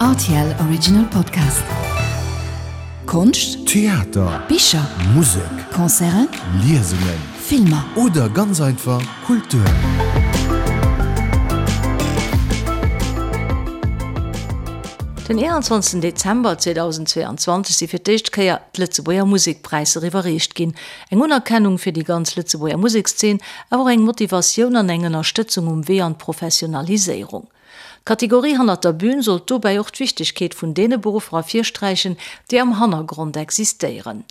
Rtl Original Podcast. Konscht, Theater, Bicher, Musek, Concerten, Liesungen, Filmer. Oder ganz einfach Kultur. Den 21 Dezember 2022 si fir d'éischt Kéier d'Lëtzebuerger Musekpräisser iwwerreecht ginn. Eng Unerkennung fir déi ganz Lëtzebuerger Musekszeen, awer och eng Motivatioun an eng Ënnerstëtzung um Wee an d'Professionaliséierung. D'Kategorie Hannert der Bühn sollt dobäi och d'Wichtegkeet vun deene Beruffer ervirsträichen, déi am Hannergrond existéieren.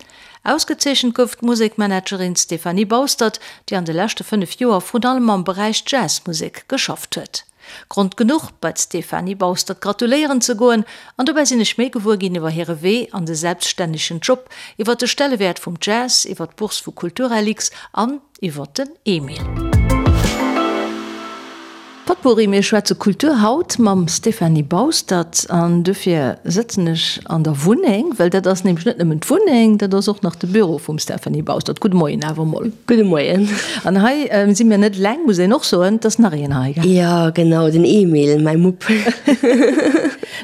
Ausgezeechent gouf d'Musekmanagerin Stéphanie Baustert, déi an de leschte 5 Joer vrun allem am Beräich Jazzmusek geschafft huet. Grond genuch, bei d'Stéphanie Baustert gratuléieren ze goen an dobäi sinn ech méi gewuer ginn iwwer hire Wee an de selbststännegen Job, iwwer de Stellewäert vum Jazz, iwwer d'Bourse vu Kulturlx an iwwer den Emil. Potpourri, Mir schwätze Kultur haut mam Stéphanie Baustert an dofir sëtzen ech an der Wunneng, well dat ass nämlech net nëmmen d'Wunneng, dat ass och nach de Büro vum Stéphanie Baustert. Gudde Moien awer emol. Gudde Moien. An hei si mir net eleng, muss een och soen, et ass nach een hei, gell? Jo, genau, den Emil, mäi Mupp.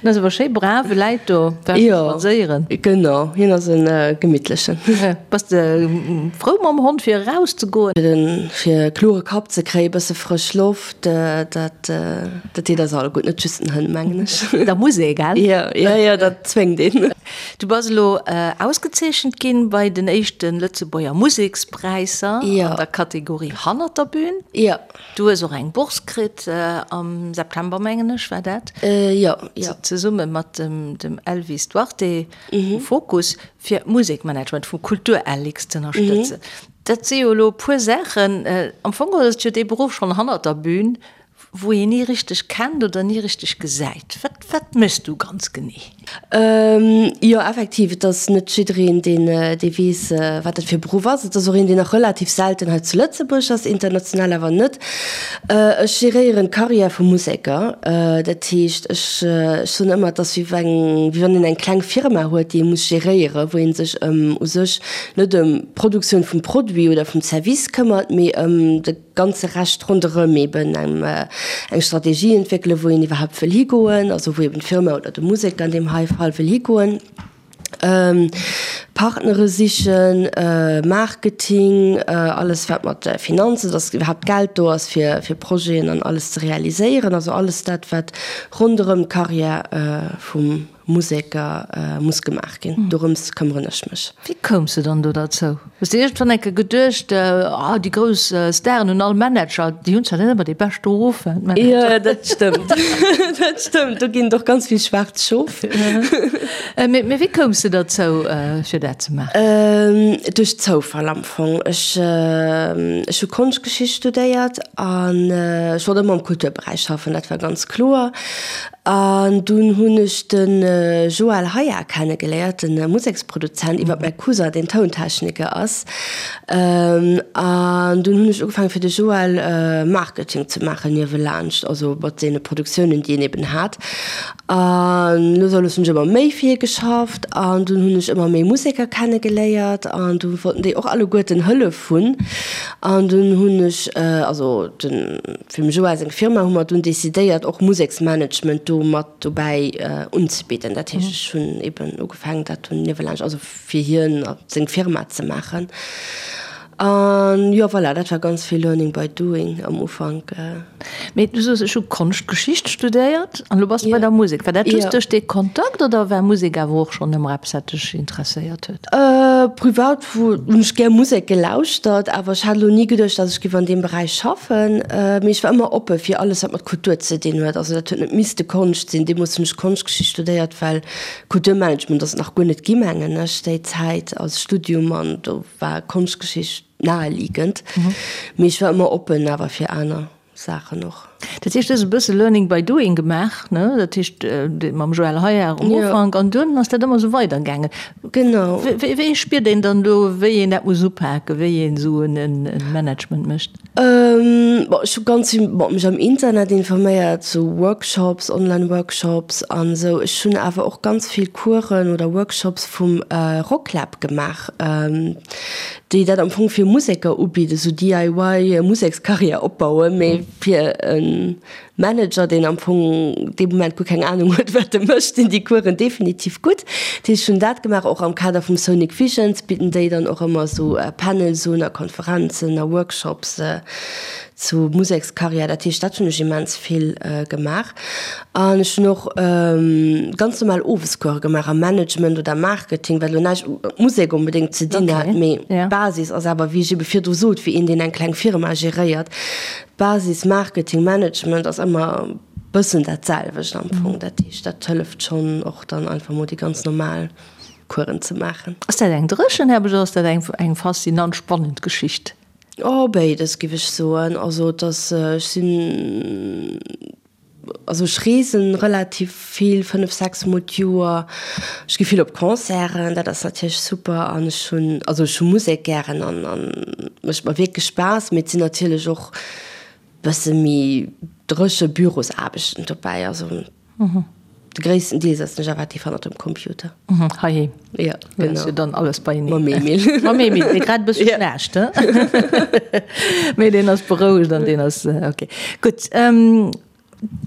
En ass awer schéi brav, e läit do, war scho spadséieren. Jo, genau, hien ass e gemittlechen. Bass de frou mam Hond fir eraus ze goen? Fir e klore Kapp ze kréien, e bësse frësch Loft, dat dat deet eis all gutt, net just den Hënn, mengen ech. Da muss ee, gell? Jo, jo, jo, dat zwéngt een. Du bass elo ausgezeechent ginn bei den éischte Lëtzebuerger Musekspräisser an der Kategorie Hannert der Bühn. Jo. Du hues och eng Bourse kritt am September, mengen ech, war dat? Jo, jo. Zesumme mat dem Elvis Duarte vu Fokus fir d'Musekmanagement vu Kulturlx z'ënnerstëtzen. Dat si jo elo e puer Saachen. Am Fong ass et jo dee Beruff schonn hannert der Bühn, wou een ni richteg kennt oder ni richteg gesäit. Wat, wat méchs du ganz genee? Jo, effektiv, et ass net jiddereen, deen, dee weess, wat dat fir e Beruff ass. Et ass och een, deen nach relativ selten hei zu Lëtzebuerg ass, international awer net. Ech geréieren d'Karriär vu Museker. Dat heescht, ech, ech soen ëmmer, et ass wéi eng, wéi wann een eng kleng Firma huet, déi ee muss geréieren, wou ee sech ëm u sech net ëm d'Produktioun vum Produit oder vum Service këmmert, mee ëm de ganze Rescht ronderëm eben eng Strategie entwéckelen, wou een iwwerhaapt wëll higoen, also wou eben d'Firma oder de Museker an deem hei Fall wëll higoen, Partnere sichen, Marketing, alles wat mat Finanzen, dass iwwerhaapt Geld do ass fir fir Projeten an alles ze realiséieren, also alles dat wat ronderëm d'Carrière vum Museker muss gemaach ginn. Dorëms këmmeren ech mech. Wéi koums de dann do derzou? Hues de iergendwann eng Kéier geduecht, ah déi grouss Staren hunn all Manager, déi hunn zwar net ëmmer dee beschte Ruf, d'Manager. Jo, dat stëmmt. Dat stëmmt, do ginn et och ganz vill schwaarz Schof. Mee wéi koums de derzou, fir dat ze maachen? Duerch Zoufall am Fong. Ech ech hu Konschtgeschicht studéiert an ech wollt ëmmer am Kulturberäich schaffen, dat war ganz kloer. An dunn hunn ech de Joël Haya kennegeléiert, de Museksproduzent, iwwer mäi Cousin, deen Tountechniker ass. An dunn hunn ech ugefaangen, fir de Joël Marketing ze maachen niewelaanscht, also mat deene Produktiounen, déi en eben hat. An lues a lues hunn ech ëmmer méi fir hie geschafft an dunn hunn ech ëmmer méi Museker kennegeléiert an du wollten déi och alleguerten Hëllef hunn. An dunn hunn ech, also den. Fir dem Joa seng Firma hu mer dunn decidéiert och Museksmanagement do mat dobäi unzebidden. Dat heescht ech hunn eben ugefaangen dat dunn niewelaanscht, also fir hien a seng Firma ze maachen. An jo voilà, dat war ganz vill learning by doing am Ufank. Mee du soos ech hu Konschtgeschicht studéiert an elo bass de bei der Musek. War dat just duerch dee Kontakt oder war Musek awer och schonn ëmmer eppes wat dech interesséiert huet? Privat hunn ech gär Musek gelauschtert, awer ech hat elo ni geduecht, datt ech géif an deem Beräich schaffen. Mee ech war ëmmer oppe fir alles, wat mat Kultur ze dinn huet. Also dat huet net misste Konscht sinn. Deemools hunn ech Konschtgeschicht studéiert, well Kulturmanagement ass et nach guer net gi mengen ech déi Zäit als Studium an do war Konschtgeschicht naheliegend. Mee ech war ëmmer oppen awer fir aner. Saachen och. Dat heescht, du hues e bësse Learning by doing gemaach, ne? Dat heescht, mam Joël Heyard um Ufank an dunn ass dat ëmmer esou weidergaangen. Genau. Wéi spiert een dann do, wéi een dat muss upaken, wéi een esou e Management mécht? Bon, ech hu ganz vill, bon, mech am Internet informéiert, sou Workshops, Online-Workshops an esou. Ech hunn awer och ganz vill Coursen oder Workshops vum Rocklab gemaach. Déi dat am Fong fir Museker ubidden, esou DIY Musekskarriär opbauen, mee fir e Manager, deen am Fong dee Moment guer keng Anung huet, wat e mécht, sinn déi Coursen definitiv gutt. Dat heescht, ech hunn dat gemaach. Och am Kader vum Sonic Visions bidden déi dann och ëmmer esou Panels un a Konferenzen a Workshops zu Musekskarriär. Dat heescht, dat hunn ech immens vill gemaach. An ech hunn och ganz normal Owescourse gemaach am Management oder Marketing, wat elo näischt mat Musek onbedéngt ze dinn hat, mee d'Basis ass awer, wéi ech ebe virdru sot, wéi een, deen eng kleng Firma geréiert, Basis Marketing, Management ass ëmmer bëssen dat selwecht am Fong. Dat heescht, dat hëlleft schonn och dann einfach mol déi ganz normal Coursen ze maachen. Ass dat eng dréchen Aarbecht oder ass dat eng faszinant, spannend Geschicht? Oh, béides, giff ech soen. Also et ass, ech sinn, also ech reesen relativ vill, 5, 6 mol d'Joer. Ech gi vill op Concerten, dat ass natierlech super. An ech hunn, also ech hu Musek gären an an mécht mer wierklech Spaass. Mee et sinn natierlech och bësse méi dréche Bürosaarbechten dobäi. Also De gréissten Deel setzen ech effektiv hannert dem Computer. Heiheem. Ja, genau. Ass jo dann alles beieneen. Mam Emil. Mam Emil, dee grad e bësse schnaarcht, he? Mee deen ass berouegt an deen ass ok. Gutt, du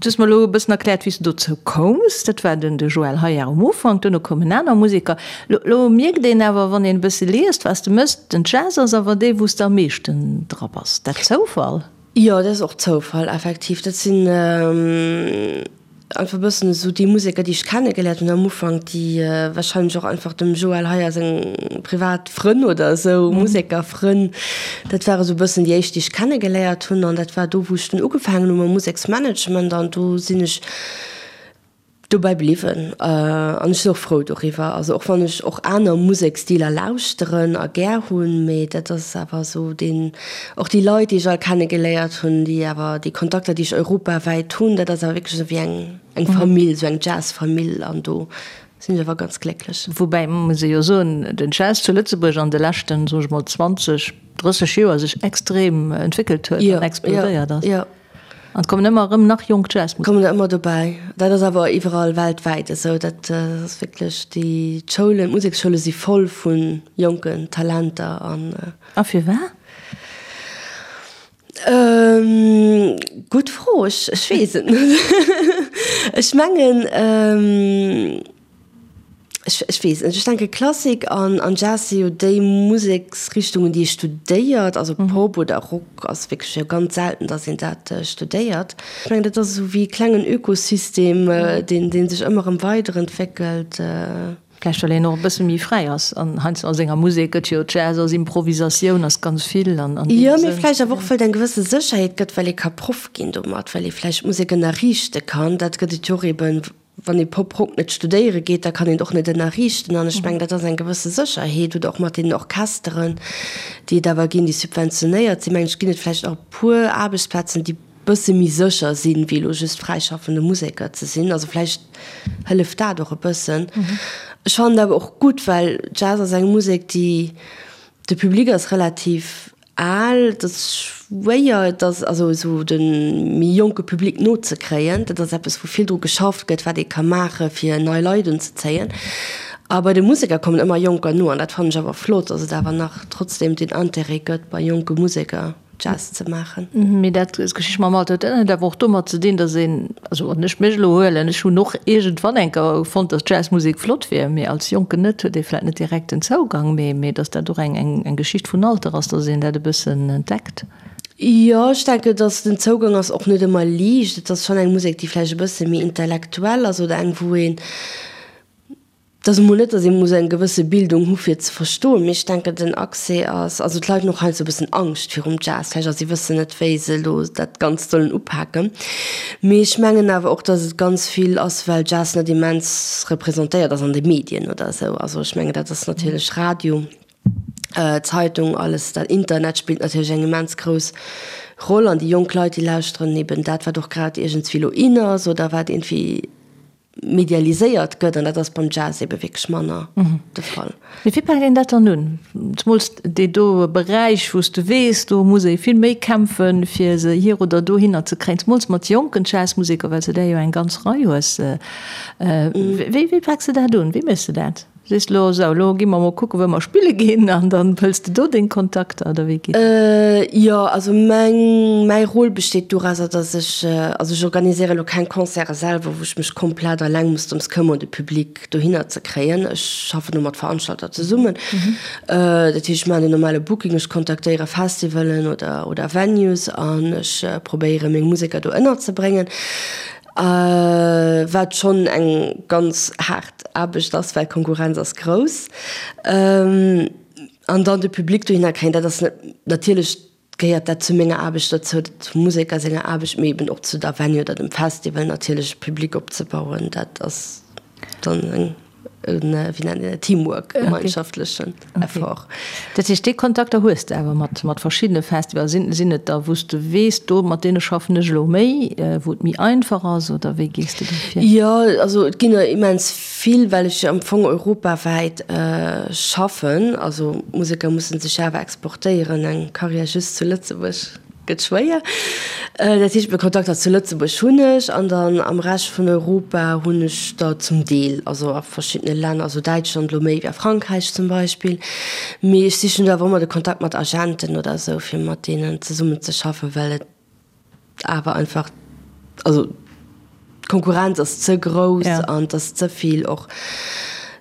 hues mer elo e bëssen erkläert, wéi s du dozou koums. Dat war den de Joël Heyard um Ufank, duerno koumen aner Museker. Lo, lo mierkt een awer, wann een e bësse liest, wat s de méchs, den Jazz ass awer dee, wou s de am meeschten dra bass. Dat Zoufall? Jo, dat ass och Zoufall, effektiv. Dat sinn einfach e bëssen esou déi Museker, déi ech kennegeléiert hunn am Ufank, déi warscheinlech och einfach dem Joël Heyer seng privat Frënn oder esou, Musekerfrënn, dat ware esou e bëssen déi éischt, déi ech kennegeléiert hunn. An dat war do, wou ech dunn ugefaangen hu mam Museksmanagement an do sinn ech Dobäi bliwwen an ech sinn och frou doriwwer. Also och wann ech och aner Museksstiler lauschteren a gär hunn, mee dat ass awer esou deen, och déi Leit déi ech all kenne geléiert hunn, déi awer déi Kontakter déi ech europawäit hunn, dat ass awer wierklech esou wéi eng eng Famill, esou eng Jazzfamill an do sinn ech awer ganz glécklech. Woubäi muss ee jo soen, den Jazz zu Lëtzebuerg an de leschten, soe ech mol 20, 30 Joer sech extrem entwéckelt huet an explodéiert ass. Jo, jo. An et kommen ëmmer erëm nach jonk Jazzmuseker. Kommen der ëmmer dobäi. Dat ass awer iwwerall weltwäit esou. Dat ass wierklech, déi d'Schoulen, d'Museksschoule si voll vu jonken Talenter an. A firwat? Gutt Fro, ech weess et net. Ech mengen. Ech, ech weess net, ech denke Klassik an, an Jazz si jo déi Museksrichtungen, déi ee studéiert. Also Pop oder Rock ass wierklech jo ganz selten, datt een dat studéiert. Ech mengen, dat ass esou wéi e klengen Ökosystem, deen, dee sech ëmmer erëm weiderentwéckelt. Vläicht well een och e bësse méi fräi ass an heiansdo a senger Musek gëtt jo Jazz ass Improvisatioun, ass ganz vill an, an deem Jo, mee Sënn. vläicht awer och, well et eng gewësse Sécherheet gëtt, well ee ka Proff ginn domat, well ee vläicht Musek ënnerriichte kann. Dat gëtt et jo och eeben, Wann ee Pop-Rock net studéiere geet, da kann een et och net ënnerriichten. An ech mengen, dat ass eng gewësse Sécherheet. Oder och mat deenen Orchesteren, déi et awer ginn, déi subventionéiert sinn, mengen ech, ginn et vläicht och e puer Aarbechtsplazen, déi e bësse méi sécher sinn, wéi elo just fräischaffende Museker ze sinn. Also vläicht hëlleft dat och e bëssen. Ech fannen et awer och gutt, well Jazz ass eng Musek, déi, de Public ass relativ Al, et ass schwéier, et ass also esou de méi jonke Public nozekréien. Dat ass eppes, wou vill dru geschafft gëtt, wat ee ka maache fir nei Leit unzezéien. A bei de Museker kommen ëmmer Jonker no an dat fannen ech awer flott, datt et awer nach trotzdeem den Interêt gëtt bei jonke Museker Jazz ze maachen. Mee dat, d'Geschicht mam Alter, huet dat net awer och domat ze dinn, datt een, also wann ech mech elo huelen, ech hunn och iergendwann eng Kéier fonnt, datt Jazzmusek flott wier, mee als Jonken net, huet ee vläicht net direkt den Zougang, mee mee datt dat och eng eng eng Geschicht vun Alter ass, datt een dat e bëssen entdeckt. Jo, ech denken, datt den Zougang ass och net ëmmer liicht. Et ass schonn eng Musek, déi vläicht e bësse méi intellektuell ass oder eng, wou een Et ass emol net, datt ee muss eng gewësse Bildung hu fir et ze verstoen, mee ech denken, den Accès ass, also d'Leit hunn och heiansdo e bëssen Angscht virum Jazz vläicht a si wëssen net, wéi se elo dat Ganzt sollen upaken. Mee ech mengen awer och, datt et ganz vill ass, well Jazz net immens representéiert ass an de Medien oder esou. Also ech mengen, dat ass natierlech Radio, Zeitung, alles dat, Internet spillt natierlech eng immens grouss Roll an déi jonk Leit, déi lauschteren eben dat, wat och grad iergendswéi elo in ass oder wat iergendwéi medialiséiert gëtt, an dat ass beim Jazz ebe wierklech manner de Fall. Mee wéi paakt een dat dann un? Zemools dee do Beräich, wou s de weess, do muss ee vill méi kämpfen, fir se hier oder dohinner ze kréien, zemools mat jonken Jazzmuseker, well s de där jo eng ganz Rei hues. Wéi, wéi paaks de dat un? Wéi méchs de dat? Sees de elo, sou, elo gi mer mol kucken, wou mer spille ginn, an dann hëls de do deng Kontakter, oder wéi geet dat? Jo, also meng, mäi Rôle besteet dorauser, datt ech, also ech organiséiere elo keng Concerte selwer, wou ech mech komplett alleng muss drëms këmmeren, de Public dohinner ze kréien. Ech schaffen do mat Veranstalter zesummen. Dat heescht, ech maachen den normale Booking, ech kontaktéiere Festivalen oder, oder Venues an ech probéiere meng Museker do ënnerzebréngen. Wat schonn eng ganz haart Aarbecht ass, well d'Konkurrenz ass grouss. An dann de Public dohinner kréien, dat ass net, natierlech gehéiert dat zu menger Aarbecht dozou, zum Museker senger Aarbecht, mee eben och zu der Venue oder dem Festival natierlech e Public opzebauen, dat ass dann eng. wéi nennt een dat, Teamwork, gemeinschaftlechen Effort. Dat heescht, déi Kontakter hues de awer mat, mat verschiddene Festivals. Sinn, sinn et der, wou s de weess, do mat deene schaffen ech elo méi, wou et méi einfach ass, oder wéi gees de do vir? Jo, also et ginn der immens vill, well ech jo am Fong europawäit schaffen. Also Museker musse sech awer exportéieren, eng Karriär just zu Lëtzebuerg Gëtt schwéier. Dat heescht, meng Kontakter zu Lëtzebuerg hunn ech an dann am Rescht vun Europa hunn ech der zum Deel, also a verschiddene Länner, also Däitschland elo méi wéi a Frankräich zum Beispill. Mee ech sichen do awer ëmmer de Kontakt mat Agenten oder esou, fir mat deenen zesummen ze schaffen, well et awer einfach, also d'Konkurrenz ass ze grouss an et ass ze vill och,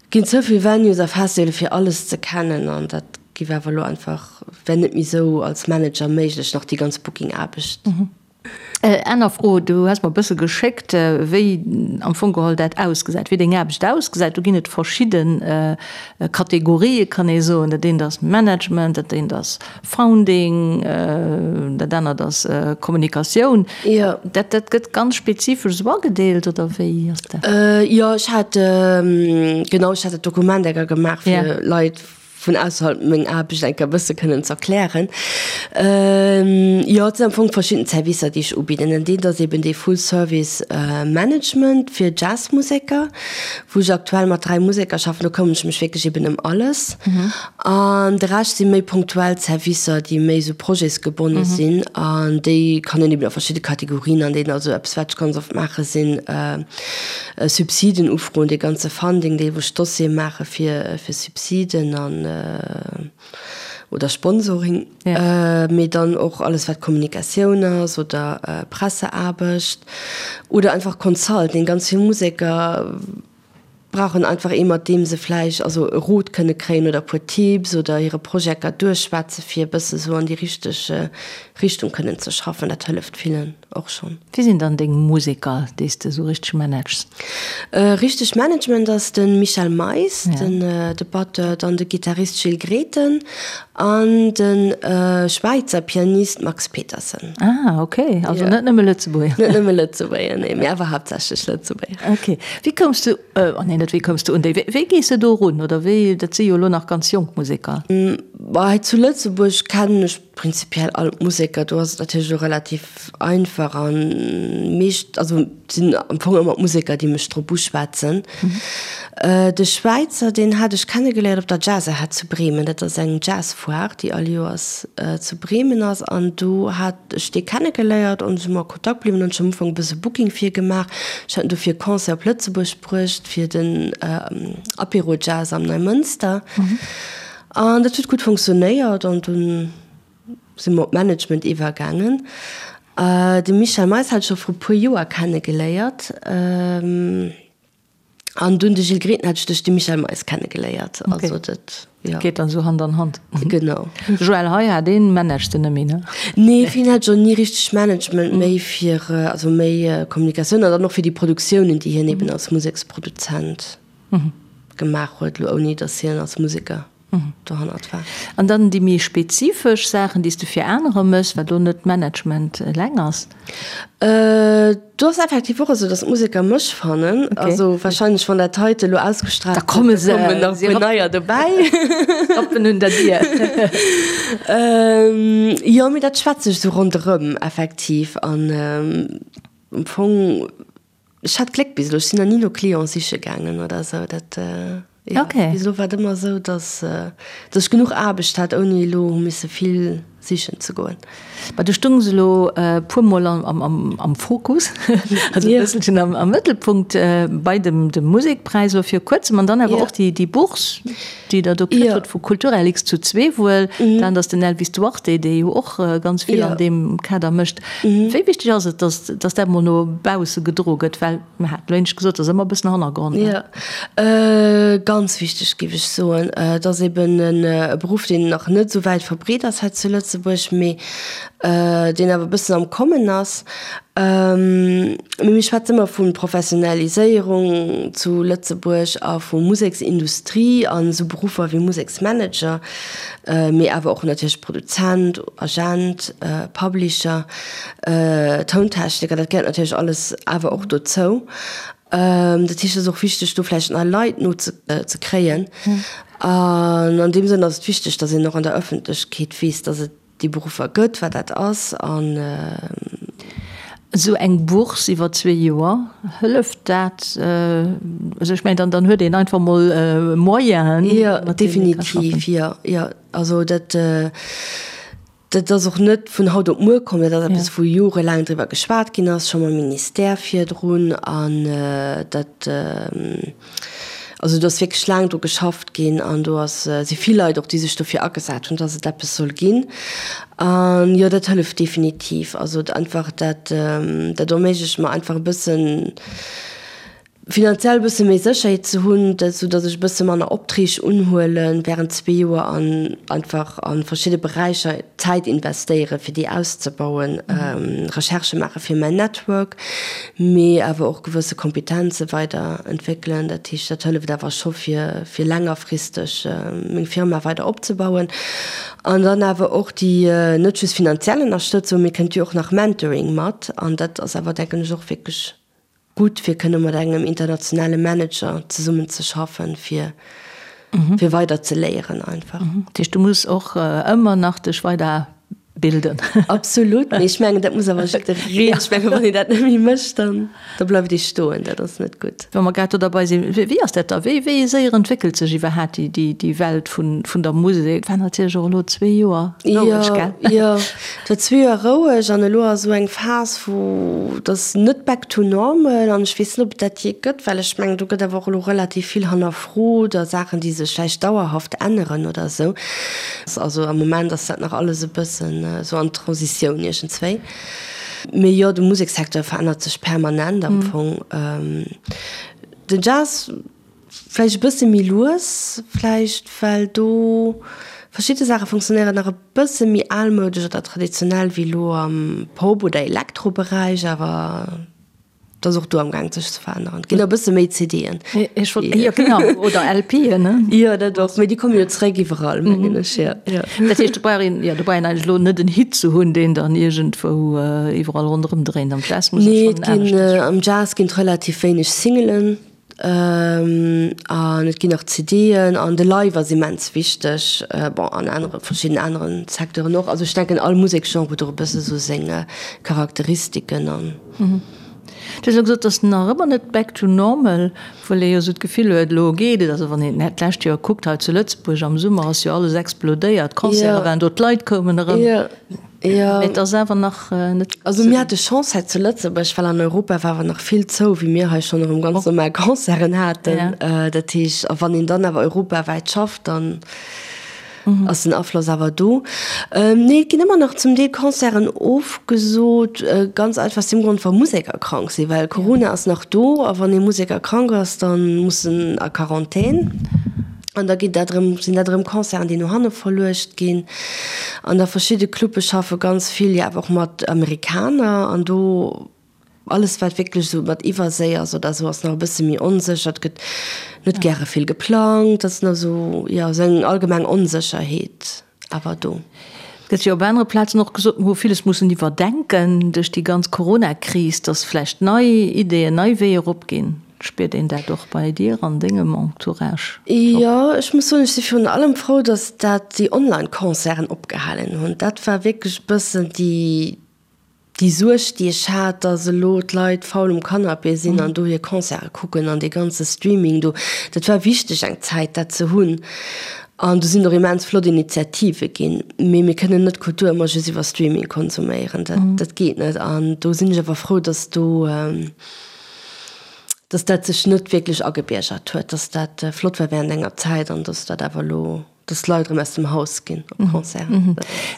ginn ze vill Venues a Festivale fir alles ze kennen an dat Giff awer elo einfach, wär net méi sou als Manager méiglech, nach déi ganz Booking-Aarbecht. Aner Fro, du has mer e bësse geschéckt, wéi am Fong geholl dat ausgesäit, wéi deng Aarbecht ausgesäit. Do ginn et verschidde Kategorië kann ee soen. Dat eent ass Management, dat eent ass Founding, dat anert ass Kommunikatioun. Dat dat gëtt ganz spezifesch esou agedeelt, oder wéi ass dat? Jo, ech hat, genau, ech hat dat Dokument enker gemaach fir Leit, vun ausserhalb meng Aarbecht eng Kéier e bësse kënnen z'erklären. Jo, et sinn am Fong verschidden Servicer, déi ech ubidden. En deen ass eben dee Full Service Management fir Jazzmuseker, wou ech aktuell mat 3 Museker schaffen. Do këmmeren ech mech wierklech eben ëm alles. An de Rescht si méi punktuell Servicer, déi méi esou projetsgebonne sinn. An déi kann een eben a verschidde Kategorien andeelen. Also eppes, wat ech ganz oft maache sinn Subsiden ufroen, dee ganze Funding, dee wou ech Dossiere maache fir fir Subsiden an oder Sponsoring, mee dann och alles wat Kommunikatioun ass oder Presseaarbecht oder einfach Consulting. Ganz vill Museker brauchen einfach ee mat deem se vläicht also e Rot kënne kréien oder e puer Tipps oder hire Projekter duerchschwätze fir e bësse sou an déi richteg Richtung kënnen ze schaffen. Dat hëlleft villen. Och schonn. Wie sinn dann deng Museker, déi s de esou richteg manages? Richteg Management ass de Michel Mais, den de Batteur, dann de Gittarist Gilles Grethen an de Schwäizer Pianist Max Petersen. Ah, ok, also net nëmme Lëtzebuerger. Net nëmme Lëtzebuerger, nee, mee awer haaptsächlech Lëtzebuerger. Ok. Wéi koums de, oh nee, net wéi koums de un déi, wéi gees de do erun oder wéi, dat si jo elo nach ganz jonk Museker? Bah, hei zu Lëtzebuerg kennen ech Prinzipiell all d'Museker, do ass et natierlech elo relativ einfach an meescht, also et sinn am Fong ëmmer d'Museker, déi mech drop uschwätzen. De Schwäizer, deen hat ech kennegeléiert op der Jazzahead zu Bremen, dat ass eng Jazzfoire, déi all Joers zu Bremen ass an do hat ech dee kennegeléiert an si mer a Kontakt bliwwen an ech hu am Ufank e bësse Booking fir e gemaach. Ech hat en dofir e Concert op Lëtzebuerg bruecht fir den Apéro Jazz am Neimënster. An dat huet gutt funktionéiert an dunn si mer op d'Management iwwergaangen. De Michel Mais hat ech scho vru puer Joer kennegeléiert an dunn de Gilles Grethen hat ech duerch de Michel Mais kennegeléiert. Also dat, jo. Geet dann esou Hand an Hand. Genau. Joël Heyar, dee managst de net méi, ne? Nee, fir hien hat ech och ni richteg Management, méi fir, also méi Kommunikatioun an dann och fir déi Produktiounen, déi hien eben als Museksproduzent gemaach huet, elo ouni datt hien als Museker dohannert war. An dann déi méi spezifesch Saachen, déi s de fir anerer méchs, wat elo net Management eleng ass? Do ass effektiv och esou, datt d'Museker mech fannen. Also warscheinlech, wann dat heite elo ausgestraalt gëtt, da komme se, kommen nach e puer neier dobäi. Rappen un der Dier. Jo, mee dat schwätzt sech esou ronderëm effektiv. An am Fong. Ech hat Gléck bis elo, ech sinn nach ni no Clienten siche gaangen oder esou. Dat, jo, Okay. bis elo war et ëmmer esou, dass, dass ech genuch Aarbecht hat, ouni elo hu misse vill Sichen ze goen. Ma du stungs elo e puer Mol am Fokus, also e bësselchen am Mëttelpunkt bei dem Musekpräis elo vir kuerzem an dann awer och déi Bourse, déi Der do kritt hutt vu Kulturlx zu Zweewuel. Dat ass den Elvis Duarte, dee jo och ganz vill an deem Kader mécht. Wéi wichteg ass et, datt dat mol no bausse gedroe gëtt? Well mir haten elo éinescht gesot, et ass ëmmer e bëssen Hannergrond. Jo, ganz wichteg, géif ech soen. Et ass eben e Beruff, deen nach net esou wäit verbreet ass hei zu Lëtzebuerg, mee deen awer e bëssen am Kommen ass. Mee mir schwätze ëmmer vu Professionaliséierung zu Lëtzebuerg a vu Museksindustrie an esou Beruffer wéi Museksmanager, mee awer och natierlech Produzent, Agent, Publisher. Tountechniker, dat gehéiert natierlech alles awer och dozou. Dat heescht, et ass och wichteg, do vläicht nei Leit no ze kréien. An an deem Sënn ass et wichteg, datt een och an der Ëffentlechkeet weess, datt et déi Beruffer gëtt, wat dat ass an. Esou eng Bourse iwwer zwee Joer, hëlleft dat? Also ech mengen, dann, dann huet een einfach mol Moyenen, Jo, definitiv, jo, jo. Also dat. Dat ass och net vun haut op muer komm, dat ass eppes, wou jorelaang driwwer geschwat ginn ass, scho mam Ministère virdrun. An dat, also do ass wierklech laang dru geschafft ginn an do ass, si vill Leit och, déi sech dofir agesat hunn, dass et eppes soll ginn. An jo, dat hëlleft definitiv. Also einfach dat, dat erméiglecht mer einfach e bëssen, Finanziell e bësse méi Sécherheet ze hunn, sou datt ech e bësse manner Optreeg unhuele während zwee Joer an einfach a verschidde Beräicher Zäit investéiere fir déi auszebauen, Recherchë maache fir mäin Network, mee awer och gewësse Kompetenze weider entwéckelen. Dat heescht, dat hëlleft awer scho fir fir längerfristeg meng Firma weider opzebauen. An dann awer och déi net just finanziell Ënnerstëtzung, mee kënnt jo och nach Mentoring mat an dat ass awer denken ech och wierklech gutt fir kënne mat engem internationale Manager zesummen ze schaffen, fir fir weider ze léieren einfach. Dat heescht, du muss och ëmmer nach dech weider bilden. Absolut, mee ech mengen dat muss awer jiddereen, ech mengen wann een dat net méi mécht, dann da bleift ee stoen, dat ass net gutt. Wa mer grad do derbei sinn, wéi ass dat da, wéi wéi séier entwéckelt sech iwwerhaat déi déi déi Welt vun vun der Musek? War natierlech och elo zwee Joer roueg, gell? Jo, jo, Et war zwee Joer roueg an elo ass esou eng Phas, wou et ass net back to normal an ech weess net, ob et dat jee gëtt, well ech mengen, do gëtt awer och elo relativ vill hannerfrot a Saachen, déi sech vläicht dauerhaft änneren oder esou. Also am Moment ass dat nach alles e bëssen esou an Transitioun iergendswéi. Mee jo, de Musekssecteur verännert sech permanent am Fong. Den Jazz. Vläicht e bësse méi lues, vläicht well do verschidde Saache funktionéieren nach e bësse méi almoudesch oder traditionell wéi elo am Pop oder Elektroberäich, awer et ass och do am Gaang sech ze veränneren. Et ginn e bësse méi CDen. Ech wollt, jo genau, oder LPen, ne? Jo, dat och, mee déi komme jo zeréck iwwerall, mengen ech, jo, jo. Dat heescht, do brauch een, jo, do brauch een eigentlech elo net en Hit ze hunn, deen dann iergendwou iwwerall ronderëm dréint. Am Jazz muss et Nee, schonn et ginn, aneschters. am Jazz ginn et relativ wéineg Singelen. An et ginn nach CDen an de Live ass immens wichteg, bon an anere verschidden aneren Secteuren och. Also ech denken all Museksgenre huet och e bësse sou seng Charakteristiken an. Du hues elo gesot, et ass nach ëmmer net back to normal, obwuel ee jo esou d'Gefill huet, elo geet et. Also wann een d'lescht Joer kuckt hei zu Lëtzebuerg am Summer ass jo alles explodéiert, d'Concerte waren do, d'Leit koumen erëm. Jo. Mee et ass awer nach net. Also mir hate Chance hei zu Lëtzebuerg, well an Europa war awer nach vill zou, wéi mir hei schonn erëm ganz normal Concerten haten. Dat heescht, a wann een dann awer europawäit schafft, dann ass den Afloss awer do. Nee, et ginn ëmmer nach zum Deel Concerten ofgesot, ganz einfach aus deem Grond, wa Museker krank sinn, well Corona ass nach do a wann ee Museker krank ass, da muss en a Quarantän. An da ginn dat erëm, sinn dat erëm Concerten, déi no hanne verluecht ginn. An da verschidde Clubbe schaffe ganz vill jo awer och mat Amerikaner an do alles wat wierklech esou mat Iwwerséi ass oder esou ass nach e bësse méi onsécher. Et gëtt net gäre vill geplangt, et ass nach esou, jo, esou eng allgemeng Onsécherheet awer do. Et gëtt jo op anere Plazen och gesot, mer hu villes mussen iwwerdenken duerch déi ganz Corona-Kris, datt vläicht nei Ideeën, nei Weeër opginn. Spiert een dat och bei dir an dengem Entourage? Jo, ech muss soen, ech si virun allem frou, datt dat déi Online-Concerten opgehalen hunn. Dat war wierklech e bëssen déi, déi Suerg, déi ech hat, datt elo d'Leit faul um Canapé sinn an do hir Concerte kucken an dee ganze Streaming do. Dat war wichteg eng Zäit, dat ze hunn. An do sinn och immens flott Initiative ginn. Mee mir kënnen net Kultur ëmmer just iwwer Streaming konsuméieren. Dat, dat geet net. An do sinn ech awer frou, dass do, dass dat sech net wierklech agebiergert huet, dass dat flott war während enger Zäit an dass dat awer elo, dass d'Leit erëm aus dem Haus ginn op Concerten.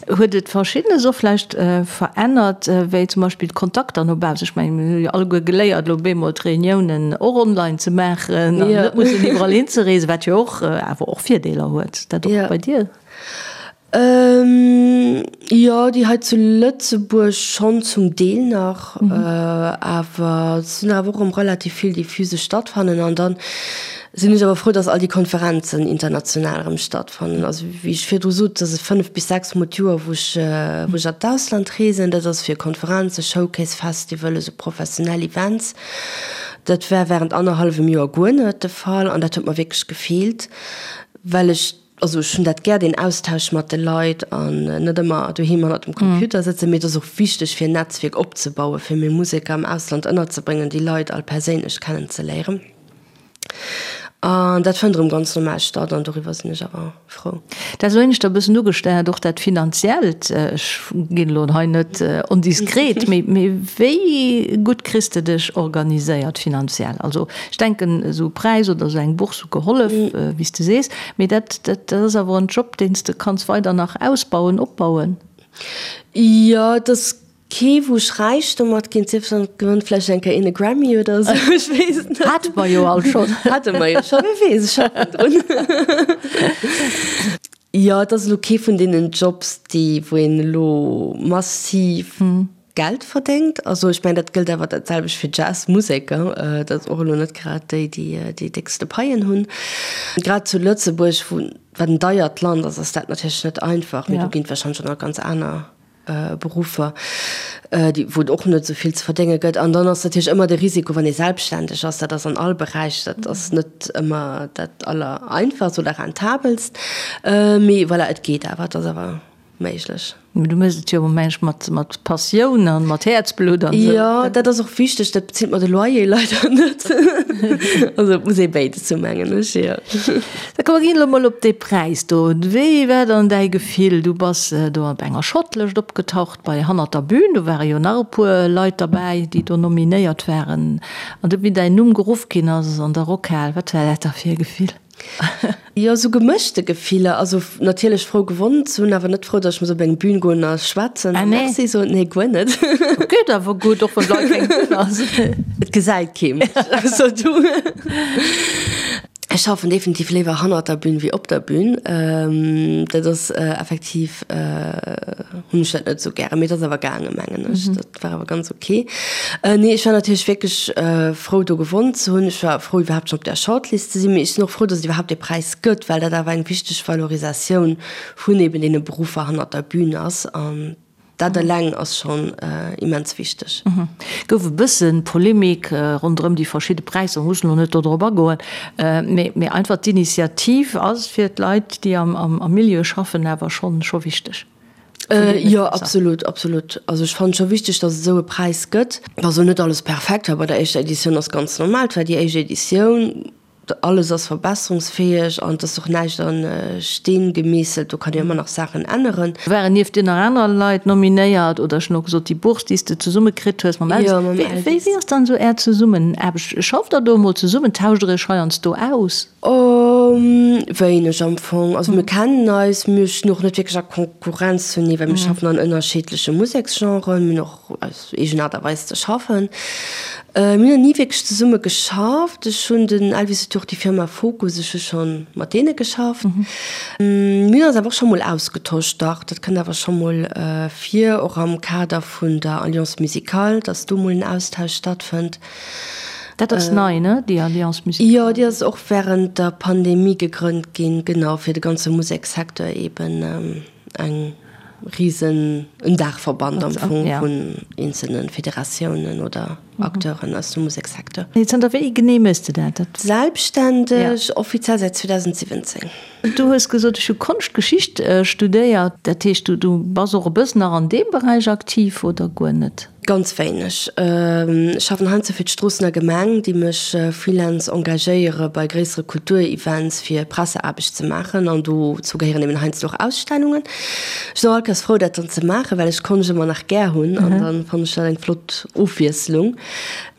Huet et Verschiddenes och vläicht verännert, wéi zum Beispill d'Kontakter no baussen? Ech mengen, mir hu jo alleguer geléiert, elo bemol d'Reuniounen och online ze maachen an net mussen iwwerall hinzereesen, wat jo och awer och Virdeeler huet. Dat och bei dir? Jo, déi hei zu Lëtzebuerg schonn zum Deel nach, awer et sinn awer och erëm relativ vill, déi physesch stattfannen. An dann sinn ech awer frou, dass all déi Konferenzen international erëm stattfannen. Also wéi ech virdru sot, dass et 5 bis 6 mol d'Joer, wou ech wou ech an d'Ausland reesen. Dat ass fir Konferenzen, Showcase Festivalen, esou professionell Events. Dat war während annerhallwem Joer guer net de Fall an dat huet mer wierklech gefeelt, well ech, also ech hunn dat gär, deen Austausch mat de Leit an net ëmmer doheem hannert dem Computer sëtzen. Mee et ass och wichteg fir en Netzwierk opzebauen, fir meng Museker am Ausland ënnerzebréngen, déi Leit all perséinlech kennenzeléieren. An dat fënnt erëm ganz normal statt an doriwwer sinn ech awer frou. Dat ass elo éineschter e bëssen ugesteiert, och dat Finanziellt. Ech ginn elo hei net ondiskret, mee mee wéi gutt kriss de dech organiséiert finanziell? Also ech denken, esou e Präis oder esou eng Bourse hu gehollef, wéi s de sees, mee dat dat ass awer en Job, deen s de kanns weider nach ausbauen, opbauen. Jo, et ass Kee wou ech räich domat ginn, sief dann et gewënnt vläicht eng Kéier een e Grammy oder esou, ech weess et net. Hate mer jo all schonn. Hate mer jo schonn, wie weess, ech schaffen drun. Jo, et ass elo kee vun deenen Jobs, déi, wou een elo massiv Geld verdéngt. Also ech mengen, dat gëllt awer dat selwecht fir Jazzmuseker, dat ass och elo net grad déi, déi déi déckste Paien hunn. Grad zu Lëtzebuerg, wou, wat en deiert Land ass, ass dat natierlech net einfach, mee do ginn et warscheinlech och nach ganz aner Beruffer, déi, wou et och net esou vill ze verdénge gëtt. An dann ass natierlech ëmmer de Risiko, wann ee selbstständeg ass, dat ass an all Beräich, dat ass net ëmmer dat Allereinfachst oder Rentabelst. Mee voilà, et geet awer, et ass awer méiglech. Mee du méchs et jo, meng ech, mat, mat Passioun an mat Häerzblutt an esou. Jo, dat ass och wichteg. Dat bezilt mer de Loyer leider net. Also et muss ee béides hunn, mengen ech, jo. Da komm mer ginn elo mol op dee Präis do. Wéi war dann däi Gefill? Du bass do op enger Shortlëscht opgetaucht bei Hannert der Bühn. Do ware jo nach e puer Leit derbäi, déi do nominéiert waren. An du, wéi däin Numm geruff ginn ass an der Rockhal, wat war dat da fir e Gefill? Jo, esou gemëschte Gefiller. Also natierlech frou gewonnen ze hunn, awer net frou, datt ech muss op eng Bühn goen a schwätzen a Merci soen. Nee, guer net. Geet awer gutt, och wann bal keng Bühn ass. Et gesäit kee mech, ausser du. Ech schaffen definitiv léiwer hannert der Bühn wéi op der Bühn. Dat ass effektiv, hunn ech dat net esou gären. Mee et ass awer gaangen, mengen ech. Dat war awer ganz ok. Nee, ech war natierlech wierklech frou do gewonnen ze hunn. Ech war frou iwwerhaapt schonn op där Shortlist ze sinn. Mee ech sinn och frou, datt et iwwerhaapt dee Präis gëtt, well dat awer eng wichteg Valorisatioun vun eben deene Beruffer hannert der Bühn ass. An dat eleng ass schonn immens wichteg. Gouf e bësse Polemik ronderëm déi verschidde Präisser, mussen elo net do drop agoen, mee einfach d'Initiativ ass fir d'Leit, déi am Milieu schaffen, awer schonn scho wichteg. Jo, absolut, absolut. Also ech fannen scho wichteg, datt et esou e Präis gëtt. Dass elo net alles perfekt war bei der éischter Editioun ass ganz normal, et war déi éischt Editioun. Alles ass verbesserungsfäeg an et ass och näischt a Steen gemeesselt, do kann een ëmmer nach Saachen änneren. Waren nieft dir nach aner Leit nominéiert oder ech hunn och gesot déi Bourse déi s de zesumme kritt hues mam Elvis. Wéi wéi ass dann esou är Zesummenaarbecht? Schafft der do emol zesummen? Tauscht der iech heiansdo aus? Wéineg am Fong. Also mir kennen eis, mir stinn och net wierklech a Konkurrenz zunee, well mir schaffen an ënnerschiddleche Museksgenren, mir hunn och eis eegen Aart a Weis ze schaffen. Mir hunn nach ni wierklech zesumme geschafft. Ech hunn, den Elvis huet jo och déi Firma Focus, ech hu scho mat deene geschafft. Mir hunn eis awer och scho mol ausgetosch, dach, dat kënnt awer scho mol vir, och am Kader vun der Alliance Musicale, datt do mol en Austausch stattfënnt. Dat ass nei, ne, déi Alliance Musicale? Jo, déi ass och wärend der Pandemie gegrënnt ginn, genau, fir de ganze Musekssecteur eeben eng risen, en Daachverband am Fong vun eenzelne Federatiounen oder Acteuren aus dem Musekssecteur. Zanter wéi genee méchs de dat? Selbstständeg, offiziell säit 2017. Du hues gesot, ech hu Konschtgeschicht studéiert. Dat heescht, du bass och e bëssen nach an deem Beräich aktiv oder guer net? Ganz wéineg. Ech schaffen heiansdo fir d'Stroossener Gemeng, déi mech freelance engagéiere bei gréissere Kulturevents fir Presseaarbecht ze maachen an dozou gehéieren eben heiansdo och Ausstellungen. Ech sinn och all Kéiers frou dat dann ze maachen, well ech Konscht ëmmer nach gär hunn an dann fannen ech dat eng flott Ofwiesslung.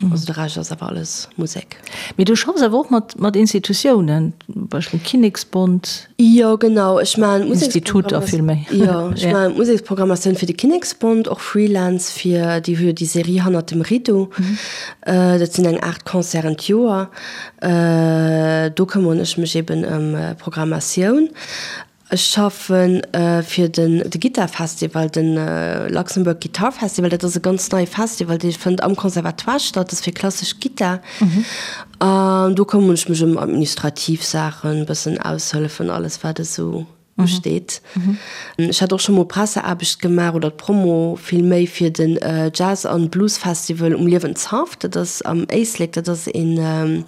Also de Rescht ass awer alles Musek. Mee du schaffs awer och mat mat Institutiounen, zum Beispill Kinneksbond. Jo genau, ech maachen Instituter vill méi. Jo, ech maachen d'Museksprogrammatioun fir de Kinneksbond, och Freelance fir, déi hu jo déi Serie Hannert dem Rideau, dat sinn eng 8 Concerten d'Joer, do këmmeren ech mech eben ëm Programmatioun. Ech schaffe fir den de Gittarfestival, de Luxembourg Guitar Festival. Dat ass e ganz neie Festival, dee fënnt am Conservatoire statt, dat ass fir klassesch Gittar. An do këmmeren ech mech ëm administrativ Saachen, e bëssen aushëllefen, alles wat esou usteet. Ech hat och scho mol Presseaarbecht gemaach oder d'Promo vill méi fir den Jazz an Blues Festival um Liewenshaff. Dat ass am Éislek, dat ass een.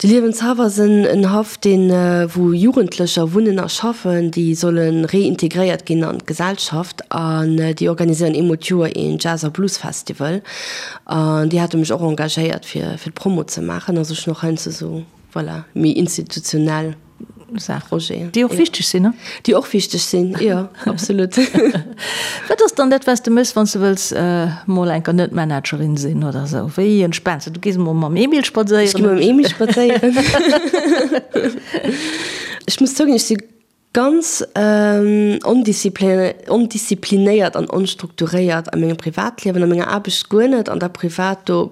De Liewenshaff ass en Haff, deen, wou Jugendlecher wunnen a schaffen, déi solle reintegréiert ginn an d'Gesellschaft. An déi organiséieren eemol d'Joer een Jazz a Blues Festival. An déi hate mech och engagéiert, fir fir d'Promo ze maachen. Also ech hunn och heiansdo esou, voilà, méi institutionell Projeten. Déi och wichteg sinn, ne? Déi och wichteg sinn, jo, absolut. Wat ass dann dat, wat s de méchs, wann s de wëlls mol enker net Managerin sinn oder esou? Wéi entspaans de? Du gees mol mam Emil spadséieren. Ech gi mam Emil spadséieren. Ech muss zouginn, ech si ganz ondisziplinéiert an onstrukturéiert a mengem Privatliewen, a menger Aarbecht guer net, an da privat do.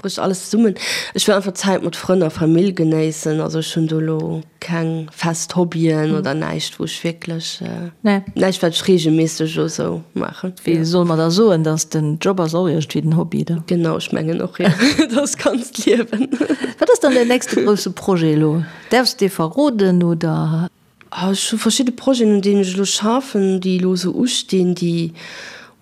Brécht alles zesummen. Ech wëll einfach Zäit mat Frënn a Famill genéissen. Also ech hunn do elo keng fest Hobbyen oder näischt wou ech wierklech, näischt wat ech reegelméisseg elo sou maachen. Wéi solle mer da soen, dass den Job ass och iergendwéi den Hobby da? Genau, ech mengen och, jo. Dat ass ganzt Liewen. Wat ass dann däin nächste grousse Projet elo? Däerfs de verroden oder? Ech hu verschidde Projeten, un deenen ech elo schaffen, déi elo esou ustinn, déi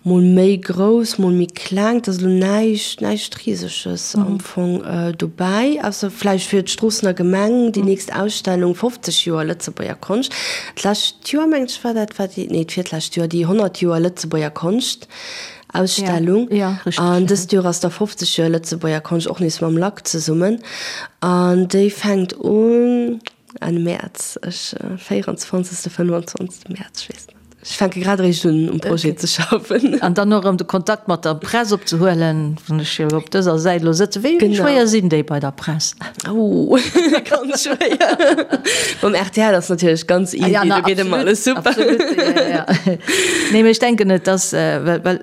mol méi grouss, mol méi kleng. Et ass elo näischt, näischt Riseges am Fong dobäi, ausser vläicht fir d'Stroossener Gemeng déi nächst Ausstellung 50 Joer Lëtzebuerger Konscht. D'lescht Joer, mengen ech, war dat, war déi, nee, d'virlescht Joer, déi 100 Joer Lëtzebuerger Konscht Ausstellung. An dëst Joer ass da 50 Joer Lëtzebuerger Konscht, och nees mam LAK zesummen. An déi fänkt un. Enn Mäerz, ech 24., 25. Mäerz, ech weess net. Ech fänke grad eréischt un, um Projet ze schaffen. An dann och erëm de Kontakt mat der Press opzehuelen, wann ech jo op dëser Säit elo sëtzen. Wéi schwéier sinn déi bei der Press? Oh, ganz schwéier. Mam rtl ass natierlech ganz easy, do geet ëmmer alles super. Absolut, jo, jo. Nee, mee ech denken, et ass, well, well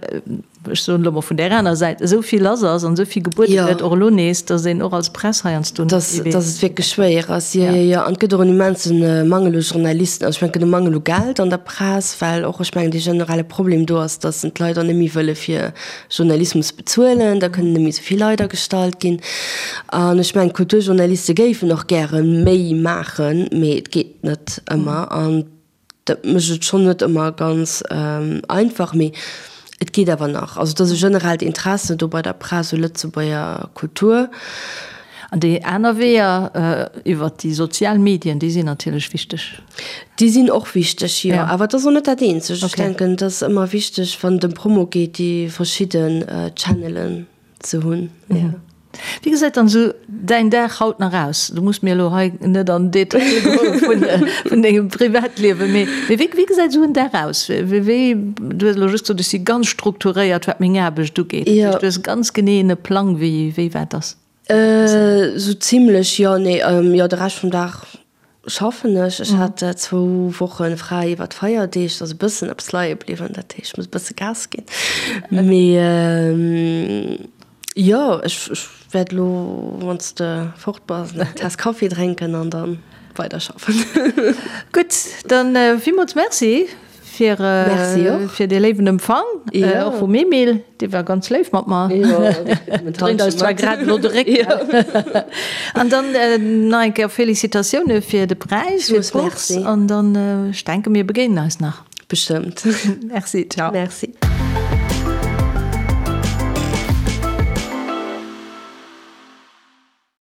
ech soen elo mol vun där aner Säit, esou vill lass ass an esou vill gebuede gëtt, och elo nees, datt een och als Press heiansdo net méi weess. Datt et wierklech schwéier ass, jo, jo, jo. An et gëtt och en immense Mangel u Journalisten. Also ech mengen, et gëtt e Mangel u Geld an der Press, well och, ech mengen, dee generelle Problem do ass, datt d'Leit och net méi wëlle fir Journalismus bezuelen. Da kënnen net méi esou vill Leit agestallt ginn. An ech mengen, d'Kulturjournaliste géifen och gäre méi maachen, mee et geet net ëmmer. An Dat mécht et schonn net ëmmer ganz einfach, mee et geet awer nach. Also et ass e generellt Interesse do bei der Press u Lëtzebuerger Kultur. An déi aner Weeër iwwert déi sozial Medien, déi sinn natierlech wichteg. Déi sinn och wichteg, jo. Awer et ass och net dat eenzegt. Ech denken, et ass ëmmer wichteg, wann et ëm Promo geet, déi verschidden Channelen ze hunn. Ja. Wéi gesäit dann esou däin Dag haut nach aus? Du muss mir elo hei net an Detail goe vun, vun dengem Privatliewen, mee, mee wéi, wéi gesäit esou en Dag aus? Wéi, wéi, du hues elo just gesot, ech si ganz strukturéiert, wat meng Aarbecht ugeet. Dat heescht, du hues ganz genee e Plang, wéi, wéi wat ass? Esou zimlech, jo. Nee, jo, de Rescht vum Dag Schaffen ech. Ech hat zwou Woche fräi iwwer d'Feierdeeg, et ass e bëssen eppes leie bliwwen, dat heescht, ech muss e bësse Gas ginn. Mee jo, ech wäert elo, wann s de fort bass, eng Taass Kaffi drénken an da weiderschaffen. Gutt, dann villmools Merci. Fir, fir dee léiwen Empfang, och vum Emil, dee war ganz léif mat mer. Dréint eis zwar grad elo de Réck. An dann nach eng Kéier Felicitatioune fir de Präis, fir d'Bourse. An dann, ech denken, mir begéinen eis nach. Bestëmmt. Merci, ciao. Merci.